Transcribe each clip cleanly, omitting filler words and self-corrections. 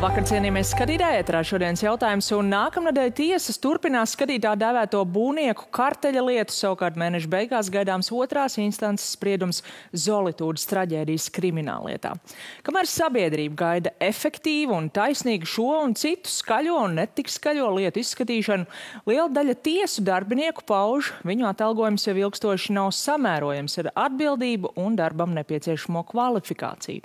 Labvakar, cienījamies skatītāji, ētrā šodienas jautājums, un nākamnedēļ tiesas turpinās skatīt tā dēvēto būvnieku karteļa lietu, savukārt mēneša beigās gaidāms otrās instances spriedums Zolitūdas traģēdijas krimināllietā. Kamēr sabiedrība gaida efektīvu un taisnīgu šo un citu skaļo un netik skaļo lietu izskatīšanu, liela daļa tiesu darbinieku pauž, viņu atalgojums jau ilgstoši nav samērojams ar atbildību un darbam nepieciešamo kvalifikāciju.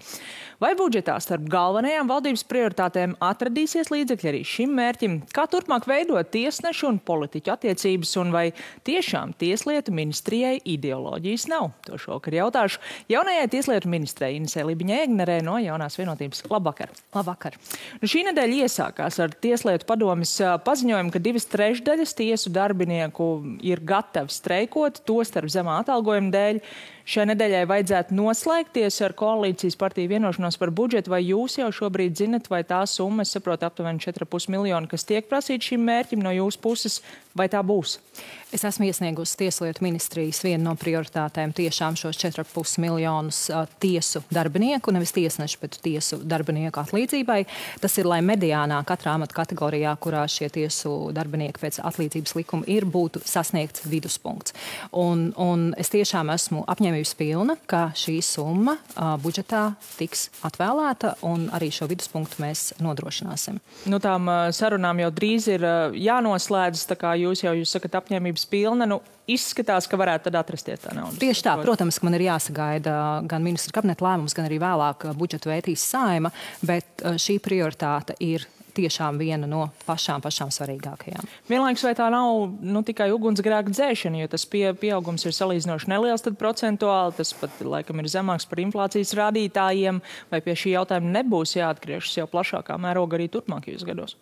Vai budžetā starp galvenajām valdības prioritātēm atradīsies līdzekļi arī šim mērķim? Kā turpmāk veidot tiesnešu un politiķu attiecības, un vai tiešām Tieslietu ministrijai ideoloģijas nav? To šovakar jautāšu jaunajai Tieslietu ministrei Inesei Libiņai-Egnerei no Jaunās vienotības. Labvakar! Labvakar! Šī nedēļa iesākās ar Tieslietu padomes paziņojumu, ka 2/3 tiesu darbinieku ir gatavi streikot, tostarp zemā atalgojuma dēļ. Šai nedēļai vajadzētu noslēgties ar koalīcijas partiju vienošanos par budžetu, vai jūs jau šobrīd zinat, vai tā summa, es saprotu, aptuveni 4,5 miljoni, kas tiek prasīta šim mērķim no jūsu puses, vai tā būs? Es esmu iesniegusi Tieslietu ministrijas vienu no prioritātēm tiešām šos 4,5 miljonus tiesu darbinieku, nevis tiesnešu, bet tiesu darbinieku atlīdzībai. Tas ir, lai mediānā katrā amata kategorijā, kurā šie tiesu darbinieki pēc atlīdzības likuma ir, būtu sasniegts viduspunkts. Un es tiešām esmu apņēmības pilna, ka šī summa budžetā tiks atvēlēta, un arī šo viduspunktu mēs nodrošināsim. Nu, tām sarunām jau drīz ir jānoslēdz, tā kā jūs sakat apņēmības pilna, izskatās, ka varētu tad atrasties tā nauda. Tieši tā, protams, ka man ir jāsagaida gan ministra kabineta lēmums, gan arī vēlāk budžetu vētīs Saeima, bet šī prioritāte ir tiešām viena no pašām svarīgākajām. Vienlaikus vai tā nav tikai ugunsgrēka dzēšana, jo tas pieaugums ir salīdzinoši neliels, tad procentuāli tas pat laikam ir zemāks par inflācijas rādītājiem, vai pie šī jautājuma nebūs jāatgriežas jau plašākā mēroga arī turpmākajos gados?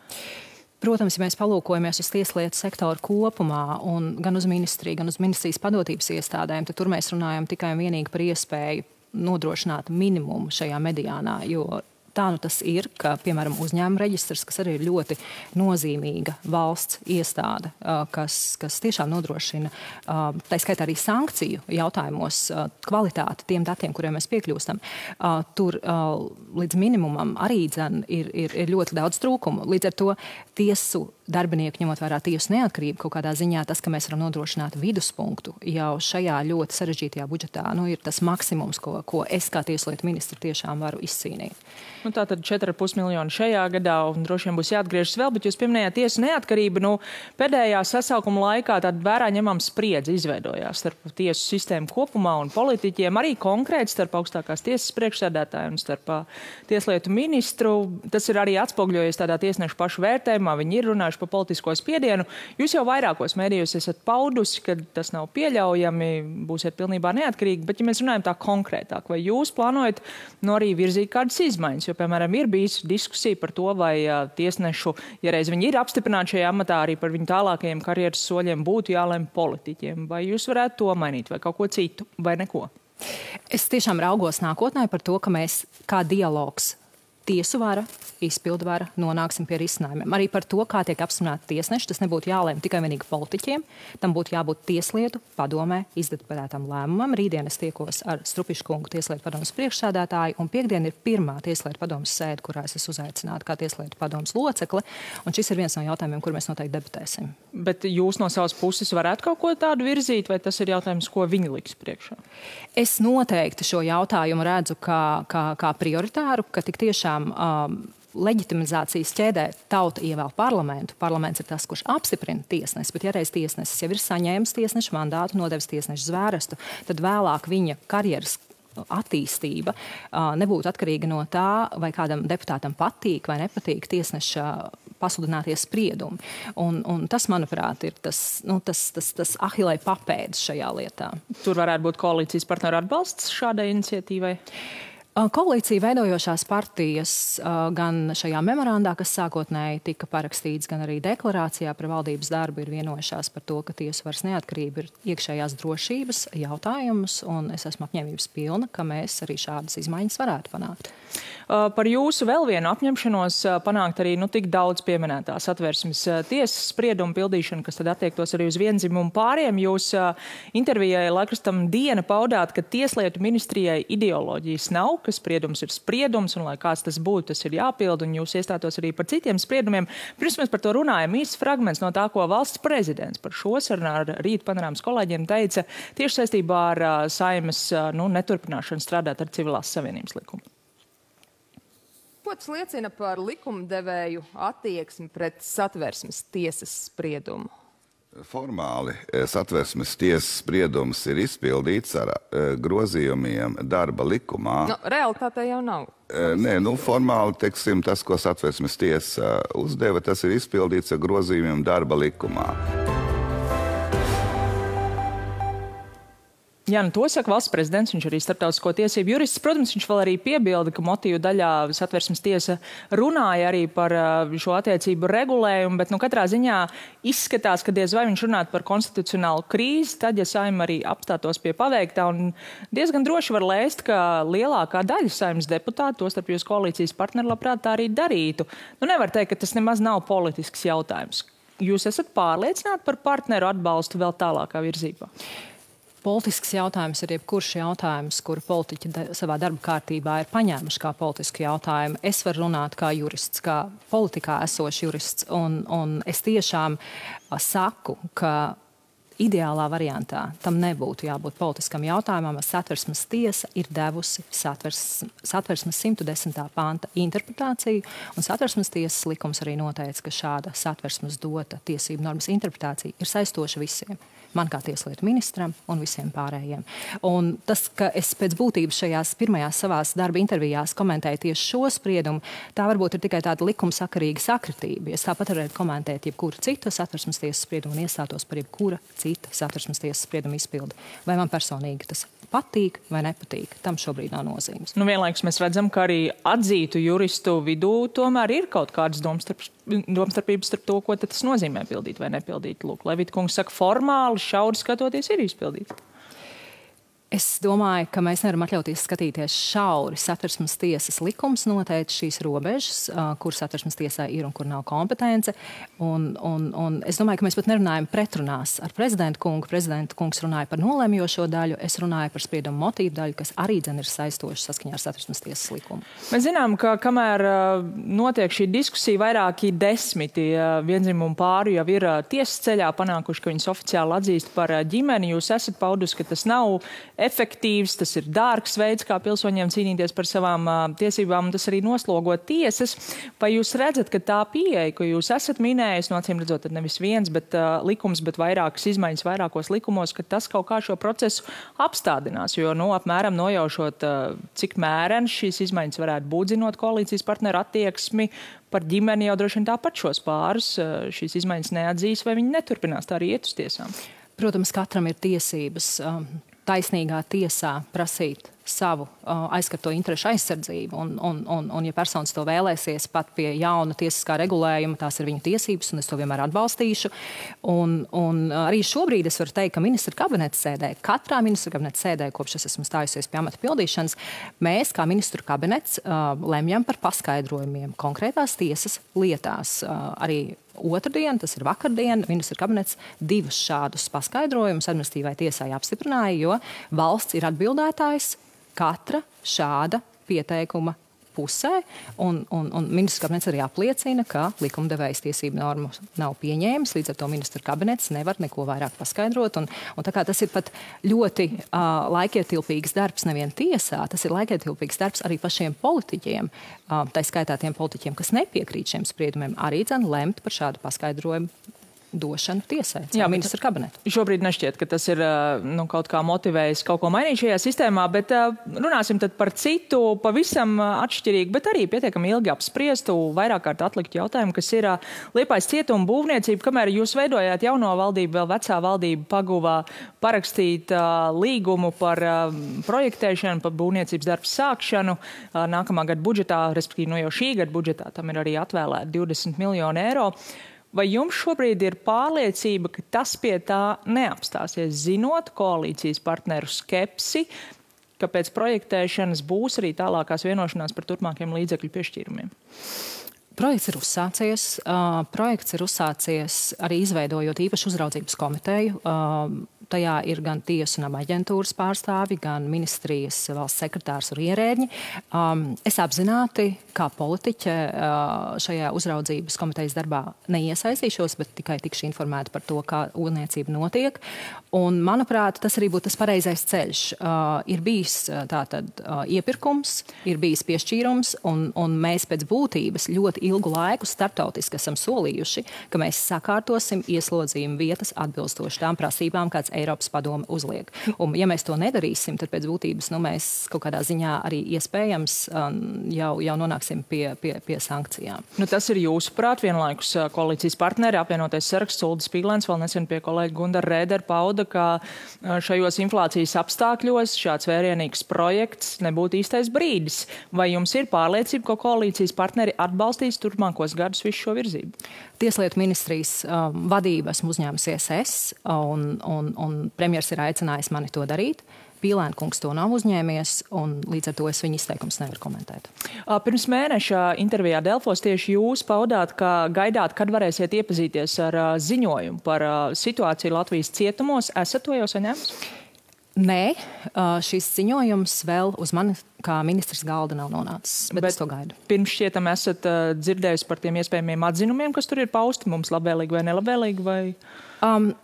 Protams, ja mēs palūkojamies uz tieslietu sektoru kopumā, un gan uz ministriju, gan uz ministrijas padotības iestādēm, tad tur mēs runājam tikai un vienīgi par iespēju nodrošināt minimumu šajā mediānā, jo tā nu tas ir, ka, piemēram, uzņēmuma reģistrs, kas arī ir ļoti nozīmīga valsts iestāde, kas tiešām nodrošina, tā skaitā arī sankciju jautājumos, kvalitāti tiem datiem, kuriem mēs piekļūstam, tur līdz minimumam arī ir ļoti daudz trūkumu. Līdz ar to tiesu darbinieku, ņemot vērā tiesu neatkarību, kaut kādā ziņā tas, ka mēs varam nodrošināt viduspunktu jau šajā ļoti sarežģītajā budžetā, ir tas maksimums, ko es kā tieslietu ministra tiešām varu izcīnīt. Tātad 4,5 miljoni šajā gadā, un droši vien būs jāatgriežas vēl, bet jūs pieminējāt tiesu neatkarību. Pēdējā sasaukuma laikā tāda vērā ņemama spriedze izveidojās starp tiesu sistēmu kopumā un politiķiem, arī konkrēti starp augstākās tiesas priekšsēdētāju un starp tieslietu ministru. Tas ir arī atspoguļojies tādā tiesnešu pašu vērtējumā, viņi ir runājuši par politisko spiedienu. Jūs jau vairākos mēdījos esat paudusi, ka tas nav pieļaujami, būsiet pilnībā neatkarīgi, bet ja mēs runājam tā konkrētāk, vai jūs plānojat arī virzīt kādas izmaiņas? Jo, piemēram, ir bijis diskusija par to, vai tiesnešu, ja reiz viņi ir apstiprināti šajā amatā, arī par viņu tālākajiem karjeras soļiem būtu jālem politiķiem. Vai jūs varētu to mainīt, vai kaut ko citu, vai neko? Es tiešām raugos nākotnē par to, ka mēs kā dialogs tiesu vara, izpildu vara nonāksim pie risinājumiem. Arī par to, kā tiek apstiprināti tiesneši, tas nebūtu jālēm tikai vienīgi politiķiem, tam būtu jābūt tieslietu padomē izdebatētam lēmumam. Rītdien es tiekos ar Strupišu kungu tieslietu padomes priekšsēdētāju, un piekdien ir pirmā tieslietu padomes sēde, kurā es esmu uzaicināta kā tieslietu padomes locekle, un šis ir viens no jautājumiem, kur mēs noteikti debatēsim. Bet jūs no savas puses varētu kaut ko tādu virzīt, vai tas ir jautājums, ko viņi liks priekšā? Es noteikti šo jautājumu redzu kā prioritāru, ka tik tiešām leģitimizācijas ķēdē tauta ievēl parlamentu. Parlaments ir tas, kurš apstiprina tiesnesi, bet ja reiz tiesnesis jau ir saņēmis tiesnešu mandātu, nodevis tiesnešu zvērestu, tad vēlāk viņa karjeras attīstība nebūtu atkarīga no tā, vai kādam deputātam patīk vai nepatīk tiesneša pasludinātie spriedumi. Un tas, manuprāt, ir tas ahilei papēdis šajā lietā. Tur varētu būt koalīcijas partneru atbalsts šādai iniciatīvai? Koalīcija veidojošās partijas gan šajā memorandā, kas sākotnēji tika parakstīts, gan arī deklarācijā par valdības darbu ir vienojušās par to, ka tiesu varas neatkarība ir iekšējās drošības jautājums, un es esmu apņēmības pilna, ka mēs arī šādas izmaiņas varētu panākt. Par jūsu vēl vienu apņemšanos panākt arī tik daudz pieminētās Satversmes tiesas spriedumu pildīšanu, kas tad attiektos arī uz viendzimumu pāriem. Jūs intervijai laikrakstam Diena paudāt, ka Tieslietu ministrijai ideoloģijas nav, ka spriedums ir spriedums, un lai kāds tas būtu, tas ir jāpild, un jūs iestātos arī par citiem spriedumiem. Pirms mēs par to runājam, īsts fragments no tā, ko valsts prezidents par šo sarunu ar Rīt panorāmas kolēģiem teica tieši saistībā ar Saeimas neturpināšanu strādāt ar Civilās savienības likumu. Ko tas liecina par likumdevēju attieksmi pret Satversmes tiesas spriedumu? Formāli Satversmes tiesas spriedums ir izpildīts ar grozījumiem darba likumā. Realitātē jau nav. Nē, formāli, teiksim, tas, ko Satversmes tiesa uzdeva, tas ir izpildīts ar grozījumiem darba likumā. Jā, to saka valsts prezidents, viņš arī starptautisko tiesību jurists. Protams, viņš vēl arī piebilda, ka motīvu daļā Satversmes tiesa runāja arī par šo attiecību regulējumu, bet katrā ziņā izskatās, ka diez vai viņš runātu par konstitucionālu krīzi, tad, ja Saeima arī apstātos pie paveiktā, un diezgan droši var lēst, ka lielākā daļa Saeimas deputātu, tostarp jūs koalīcijas partneri, labprāt tā arī darītu. Nevar teikt, ka tas nemaz nav politisks jautājums. Jūs esat pārliecināti par partneru atbalstu vēl tālākā virzībā? Politisks jautājums ir jebkurš jautājums, kuru politiķi savā darba kārtībā ir paņēmuši kā politisku jautājumu. Es varu runāt kā jurists, kā politikā esošs jurists, un es tiešām saku, ka ideālā variantā tam nebūtu jābūt politiskam jautājumam. Satversmes tiesa ir devusi Satversmes 110. panta interpretāciju, un Satversmes tiesas likums arī noteica, ka šāda Satversmes dota tiesību normas interpretācija ir saistoša visiem. Man kā tieslietu ministram un visiem pārējiem. Un tas, ka es pēc būtības šajās pirmajās savās darba intervijās komentēju tieši šo spriedumu, tā varbūt ir tikai tāda likumsakarīga sakritība. Es tāpat varētu komentēt jebkuru citu Satversmes tiesas spriedumu un iestātos par jebkura cita Satversmes tiesas sprieduma izpildi. Vai man personīgi tas patīk vai nepatīk, tam šobrīd nav nozīmes. Vienlaikus mēs redzam, ka arī atzītu juristu vidū tomēr ir kaut kādas domstarpības starp to, ko tas nozīmē pildīt vai nepildīt. Lūk, Levita kungs saka, formāli, šauri skatoties, ir izpildīts. Es domāju, ka mēs nevaram atļauties skatīties šauri. Satversmes tiesas likums noteica šīs robežas, kur Satversmes tiesā ir un kur nav kompetence. Un es domāju, ka mēs pat nerunājam pretrunās ar prezidentu kungu. Prezidenta kungs runāja par nolēmjošo daļu, es runāju par spriedumu motīvu daļu, kas arī ir saistoši saskaņā ar Satversmes tiesas likumu. Mēs zinām, ka kamēr notiek šī diskusija, vairāki desmiti viendzimumu pāru jau ir tiesas ceļā panākuši, ka viņas oficiāli atzīst par ģimeni. Jūs esat paudusi, ka tas nav efektīvs, tas ir dārgs veids, kā pilsoņiem cīnīties par savām tiesībām, un tas arī noslogo tiesas. Vai jūs redzat, ka tā pieeja, ko jūs esat minējis, acīm redzot, nevis viens likums, bet vairākas izmaiņas vairākos likumos, ka tas kaut kā šo procesu apstādinās, jo apmēram nojaušot, cik mērens šīs izmaiņas varētu būt, zinot koalīcijas partneru attieksmi par ģimeni, jau droši vien tāpat šos pārus šīs izmaiņas neatzīs, vai viņi neturpinās tā arī iet uz tiesām? Protams, katram ir tiesības taisnīgā tiesā prasīt savu aizskarto interešu aizsardzību. Un ja personas to vēlēsies pat pie jauna tiesiskā regulējuma, tās ir viņu tiesības, un es to vienmēr atbalstīšu. Un arī šobrīd es varu teikt, ka ministra kabineta sēdē, katrā ministra kabineta sēdē, kopš es esmu stājusies pie amata pildīšanas, mēs kā ministru kabinets lemjam par paskaidrojumiem konkrētās tiesas lietās. Arī otrdien, tas ir vakardien, ministra kabinets 2 šādus paskaidrojumus administratīvai tiesai apstiprināja, jo valsts ir atbildētājs katra šāda pieteikuma pusē, un ministra kabinets arī apliecina, ka likumdevējs tiesību normu nav pieņēmis, līdz ar to ministra kabinets nevar neko vairāk paskaidrot, un tā kā tas ir pat ļoti laikietilpīgs darbs nevien tiesā, tas ir laikietilpīgs darbs arī pašiem politiķiem, tā skaitā tiem politiķiem, kas nepiekrīt šiem spriedumiem, arī lemt par šādu paskaidrojumu došanu tiesai, ministra kabinetu. Šobrīd nešķiet, ka tas ir kaut kā motivējis kaut ko mainīt šajā sistēmā, bet runāsim tad par citu, pavisam atšķirīgu, bet arī pietiekami ilgi apspriestu, vairāk kārt atliktu jautājumu, kas ir Liepājas cietuma būvniecība. Kamēr jūs veidojāt jauno valdību, vēl vecā valdība paguvā parakstīt līgumu par projektēšanu, par būvniecības darbu sākšanu nākamā gada budžetā, respektīvi jau šī gada budžetā, tam ir arī atvēlēti 20 miljoni eiro. Vai jums šobrīd ir pārliecība, ka tas pie tā neapstāsies, zinot koalīcijas partneru skepsi, ka pēc projektēšanas būs arī tālākās vienošanās par turpmākiem līdzekļu piešķīrumiem? Projekts ir uzsācies arī izveidojot īpašu uzraudzības komiteju. tajā ir gan tiesu un aģentūras pārstāvi, gan ministrijas valsts sekretārs un ierēģi. Es apzināti, kā politiķe šajā uzraudzības komitejas darbā neiesaistīšos, bet tikai tikšu informēta par to, kā ūdniecība notiek. Un, manuprāt, tas arī būtu tas pareizais ceļš. Ir bijis tātad iepirkums, ir bijis piešķīrums, un mēs pēc būtības ļoti ilgu laiku starptautiski esam solījuši, ka mēs sakārtosim ieslodzījumu vietas atbilstoši tām prasībām, kāds Eiropas padome uzliek. Un, ja mēs to nedarīsim, tad pēc būtības mēs kaut kādā ziņā arī iespējams jau nonāksim pie sankcijām. Tas ir jūsuprāt, vienlaikus koalīcijas partneri, apvienotais saraksts, Uldis Pīglēns, vēl nesen pie kolēģa Gundara Rēdera pauda, ka šajos inflācijas apstākļos šāds vērienīgs projekts nebūtu īstais brīdis. Vai jums ir pārliecība, ka koalīcijas partneri atbalstīs turpmākos gadus visu šo virzību? Tieslietu ministrijas vadību esmu uzņēmusies es, un premjers ir aicinājis mani to darīt. Pīlēna kungs to nav uzņēmies, un līdz ar to es viņa izteikums nevaru komentēt. Pirms mēneša intervijā Delfos tieši jūs paudāt, ka gaidāt, kad varēsiet iepazīties ar ziņojumu par situāciju Latvijas cietumos. Esat to jau saņēmis? Nē, šis ziņojums vēl uz mani kā ministrs galda nav nonācis, bet es to gaidu. Pirms šķietam esat dzirdējusi par tiem iespējamiem atzinumiem, kas tur ir pausti, mums labvēlīgi vai nelabvēlīgi? Vai...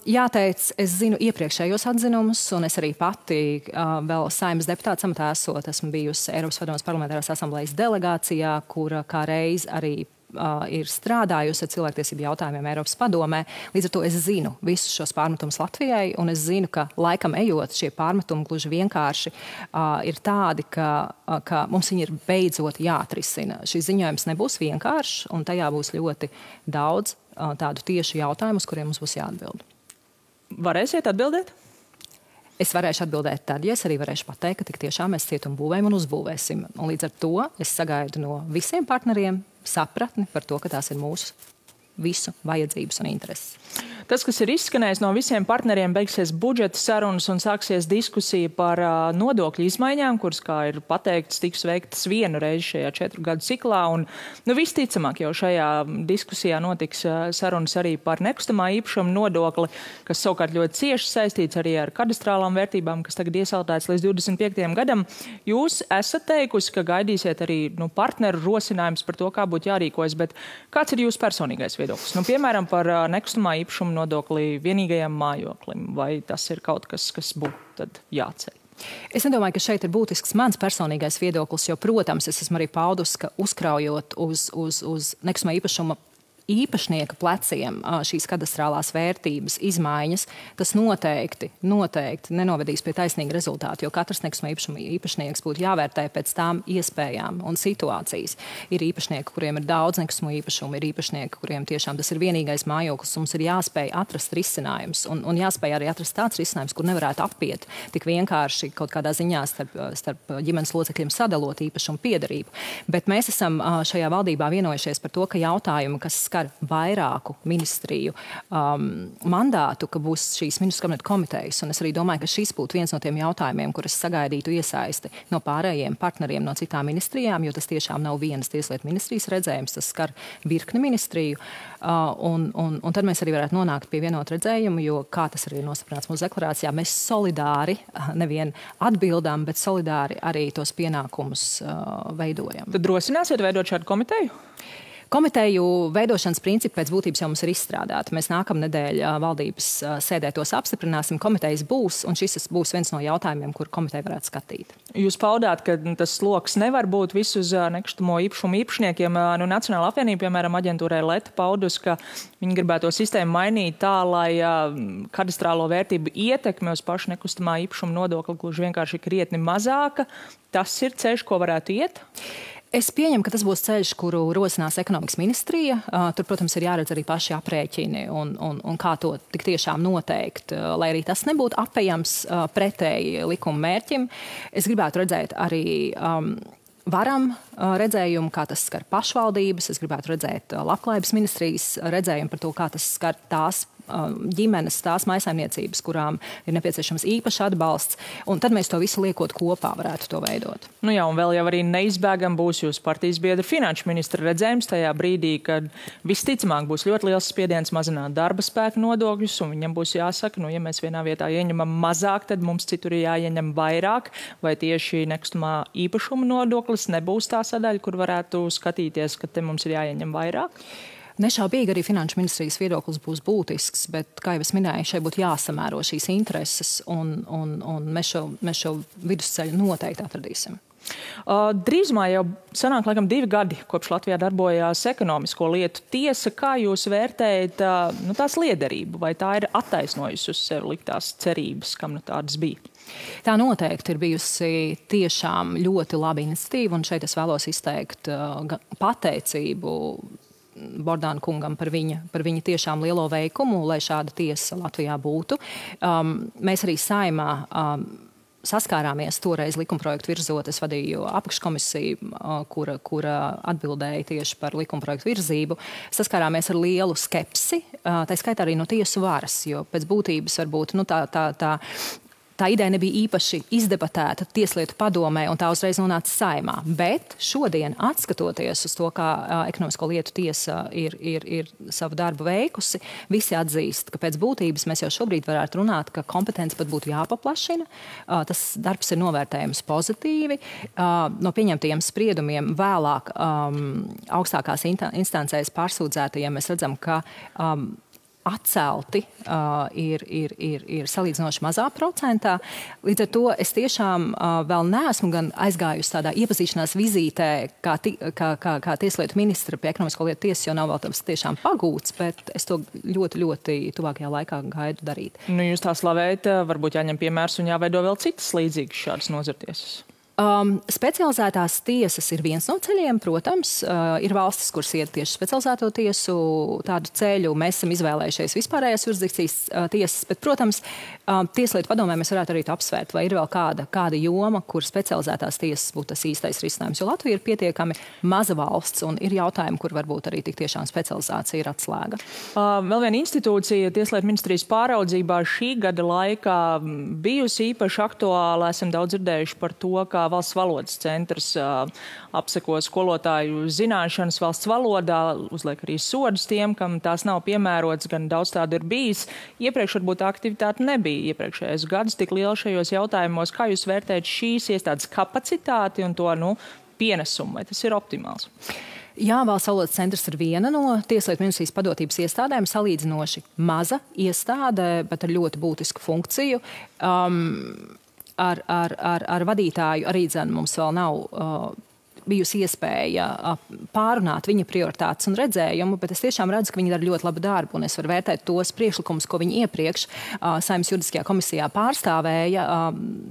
Jāteic, es zinu iepriekšējos atzinumus, un es arī pati vēl Saeimas deputāta amatā esot, esmu bijusi Eiropas Padomes parlamentārās asamblejas delegācijā, kura kā reiz arī ir strādājusi ar cilvēktiesību jautājumiem Eiropas padomē. Līdz ar to es zinu visus šos pārmetumus Latvijai, un es zinu, ka laikam ejot šie pārmetumi gluži vienkārši ir tādi, ka mums viņi ir beidzot jāatrisina. Šis ziņojums nebūs vienkāršs, un tajā būs ļoti daudz tādu tiešu jautājumu, uz kuriem mums būs jāatbild. Varēsiet atbildēt? Es varēšu atbildēt tad, ja es arī varēšu pateikt, ka tik tiešām mēs cietumu būvējam un uzbūvēsim. Un līdz ar to es sagaidu no visiem partneriem sapratni par to, ka tās ir mūsu visu vajadzības un intereses. Tas, kas ir izskanējis no visiem partneriem, beigsies budžeta sarunas un sāksies diskusija par nodokļu izmaiņām, kuras, kā ir pateikts, tiks veiktas vienu reizi šajā 4 gadu ciklā. Un, visticamāk, jau šajā diskusijā notiks sarunas arī par nekustamā īpašuma nodokli, kas savukārt ļoti cieši saistīts arī ar kadastrālām vērtībām, kas tagad iesaldēts līdz 25. gadam. Jūs esat teikusi, ka gaidīsiet arī partneru rosinājums par to, kā būtu jārīkojas, bet kāds ir jūsu personīgais viedoklis? Piemēram, par nekustamā īpašuma nodokli vienīgajam mājoklim, vai tas ir kaut kas, kas būtu tad jāceļ? Es nedomāju, ka šeit ir būtisks mans personīgais viedoklis, jo, protams, es esmu arī paudus, ka uzkraujot uz nekustamā īpašuma īpašnieka pleciem šīs kadastrālās vērtības izmaiņas, tas noteikti nenovedīs pie taisnīga rezultāta, jo katrs nekustamā īpašuma īpašnieks būtu jāvērtē pēc tām iespējām un situācijas. Ir īpašnieki, kuriem ir daudz nekustamo īpašumu, ir īpašnieki, kuriem tiešām tas ir vienīgais mājoklis, mums ir jāspēj atrast risinājums un jāspēj arī atrast tāds risinājums, kur nevarētu apiet tik vienkārši kaut kādā ziņā starp ģimenes locekļiem sadalot īpašumu piederību. Bet mēs esam šajā valdībā vienojušies par to, ka jautājumi, kas skar vairāku ministriju mandātu, ka būs šīs ministru kabineta komitejas. Un es arī domāju, ka šis būtu viens no tiem jautājumiem, kur es sagaidītu iesaisti no pārējiem partneriem no citām ministrijām, jo tas tiešām nav vienas tieslietu ministrijas redzējums, tas skar virkni ministriju. Un tad mēs arī varētu nonākt pie vienota redzējuma, jo, kā tas arī ir nostiprināts mūsu deklarācijā, mēs solidāri nevien atbildām, bet solidāri arī tos pienākumus veidojam. Tad drosināsiet veidot šādu komiteju? Komiteju veidošanas principi pēc būtības jau mums ir izstrādāti. Mēs nākamnedēļ valdības sēdē tos apstiprināsim, komitejas būs, un šis būs viens no jautājumiem, kur komiteja varētu skatīt. Jūs paudāt, ka tas sloks nevar būt visu uz nekustamo īpašumu īpašniekiem. Nacionāla apvienība, piemēram, aģentūrai Leta paudus, ka viņi gribētu to sistēmu mainīt tā, lai kadastrālo vērtību ietekme uz pašu nekustamā īpašuma nodokli gluži vienkārši krietni mazāka. Tas ir ceļš, ko varētu iet? Es pieņemu, ka tas būs ceļš, kuru rosinās ekonomikas ministrija. Tur, protams, ir jāredz arī paši aprēķini un kā to tik tiešām noteikt, lai arī tas nebūtu apejams pretēji likuma mērķim. Es gribētu redzēt arī varam redzējumu, kā tas skar pašvaldības. Es gribētu redzēt labklājības ministrijas redzējumu par to, kā tas skar tās ģimenes, tās maisaimniecības, kurām ir nepieciešams īpašs atbalsts, un tad mēs to visu liekot kopā varētu to veidot. Nu jā, un vēl jau arī neizbēgam būs jūsu partijas biedra finanšu ministra redzējums tajā brīdī, kad visticamāk būs ļoti liels spiediens mazināt darba spēka nodokļus, un viņam būs jāsaka, nu, ja mēs vienā vietā ieņemam mazāk, tad mums citur ir jāieņem vairāk, vai tieši nekustamā īpašuma nodoklis nebūs tā sadaļa, kur varētu skatīties, ka te mums ir jāieņem vairāk? Nešaubīgi arī finanšu ministrijas viedoklis būs būtisks, bet, kā jau es minēju, šeit būtu jāsamēro šīs intereses, un mēs šo vidusceļu noteikti atradīsim. Drīzumā jau sanāk laikam 2 gadi, kopš Latvijā darbojās ekonomisko lietu tiesa. Kā jūs vērtējat tās liederību? Vai tā ir attaisnojusi uz sevi liktās cerības, kam tādas bija? Tā noteikti ir bijusi tiešām ļoti laba iniciatīva, un šeit es vēlos izteikt pateicību Bordāna kungam par viņa tiešām lielo veikumu, lai šāda tiesa Latvijā būtu. Mēs arī Saeimā saskārāmies toreiz likumprojektu virzot. Es vadīju apakškomisiju, kura atbildēja tieši par likumprojektu virzību. Saskārāmies ar lielu skepsi, tā skaitā arī no tiesu varas, jo pēc būtības varbūt tā ideja nebija īpaši izdebatēta Tieslietu padomē, un tā uzreiz nonāca Saeimā. Bet šodien, atskatoties uz to, kā ekonomisko lietu tiesa ir savu darbu veikusi, visi atzīst, ka pēc būtības mēs jau šobrīd varētu runāt, ka kompetence pat būtu jāpaplašina. Tas darbs ir novērtējams pozitīvi. No pieņemtajiem spriedumiem vēlāk augstākās instancēs pārsūdzētajiem mēs redzam, ka atcelti ir salīdzinoši mazā procentā. Līdz ar to es tiešām vēl neesmu gan aizgājusi tādā iepazīšanās vizītē, kā tieslietu ministra pie ekonomisko lietu tiesas, jo nav vēl tas tiešām pagūts, bet es to ļoti, ļoti tuvākajā laikā gaidu darīt. Nu, jūs tā slavējat, varbūt jāņem piemērs un jāveido vēl citas līdzīgas šādas nozartiesas. Specializētās tiesas ir viens no ceļiem, protams. Ir valstis, kuras iet tieši specializēto tiesu tādu ceļu. Mēs esam izvēlējušies vispārējās jurisdikcijas tiesas, bet, protams, Tieslietu padomē mēs varētu arī apsvērt, vai ir vēl kāda joma, kur specializētās tiesas būtu tas īstais risinājums. Jo Latvija ir pietiekami maza valsts un ir jautājumi, kur varbūt arī tik tiešām specializācija ir atslēga. Vēl viena institūcija Tieslietu ministrijas pāraudzībā šī gada laikā bijusi īpaši aktuāla. Esam daudz dzirdējuši par to, kā Valsts valodas centrs apseko skolotāju zināšanas valsts valodā, uzliek arī sodus tiem, kam tās nav piemērots, gan daudz tādu ir bijis. Iepriekš varbūt aktivitāte nebija iepriekšējos gadus tik liela šajos jautājumos. Kā jūs vērtējat šīs iestādes kapacitāti un to pienesumu? Vai tas ir optimāls? Jā, Valsts valodas centrs ir viena no Tieslietu ministrijas padotības iestādēm, salīdzinoši maza iestāde, bet ar ļoti būtisku funkciju. Ar vadītāju arī mums vēl nav bijusi iespēja pārunāt viņa prioritātes un redzējumu, bet es tiešām redzu, ka viņi dara ļoti labu darbu, un es varu vērtēt tos priekšlikumus, ko viņi iepriekš Saeimas juridiskajā komisijā pārstāvēja,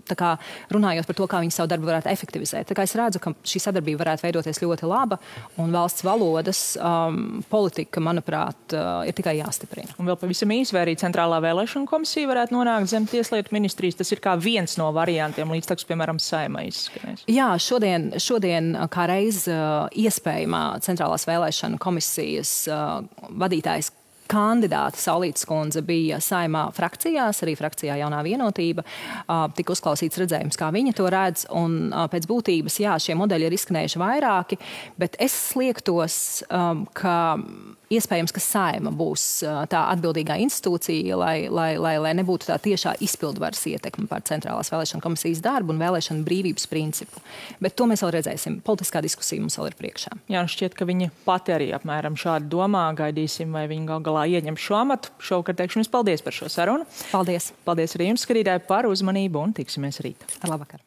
tā kā runājot par to, kā viņi savu darbu varētu efektivizēt. Tā kā es redzu, ka šī sadarbība varētu veidoties ļoti laba, un valsts valodas politika, manuprāt, ir tikai jāstiprina. Un vēl pavisam īsi, vai arī Centrālā vēlēšana komisija varētu nonākt zem Tieslietu ministrijas? Tas ir kā viens no variantiem, līdz piemēram, Saeimai izskanēs. Jā, šodien kā reiz iespējamā Centrālās vēlēšana komisijas vadītājs kandidāta Saulītes kundze bija Saeimā frakcijās, arī frakcijā Jaunā vienotība. Tika uzklausīts redzējums, kā viņa to redz, un pēc būtības, jā, šie modeļi ir izskanējuši vairāki, bet es sliektos, ka iespējams, ka Saeima būs tā atbildīgā institūcija, lai nebūtu tā tiešā izpildvaras ietekme par Centrālās vēlēšana komisijas darbu un vēlēšana brīvības principu. Bet to mēs vēl redzēsim. Politiskā diskusija mums vēl ir priekšā. Jā, šķiet, ka viņa pati arī apmēram šādi domā. Gaidīsim, vai viņa gal galā ieņem šo amatu. Šovakar teikšu jums paldies par šo sarunu. Paldies. Paldies arī jums, skatītāji, par uzmanību un tiksimies rīt. Ar labvakar.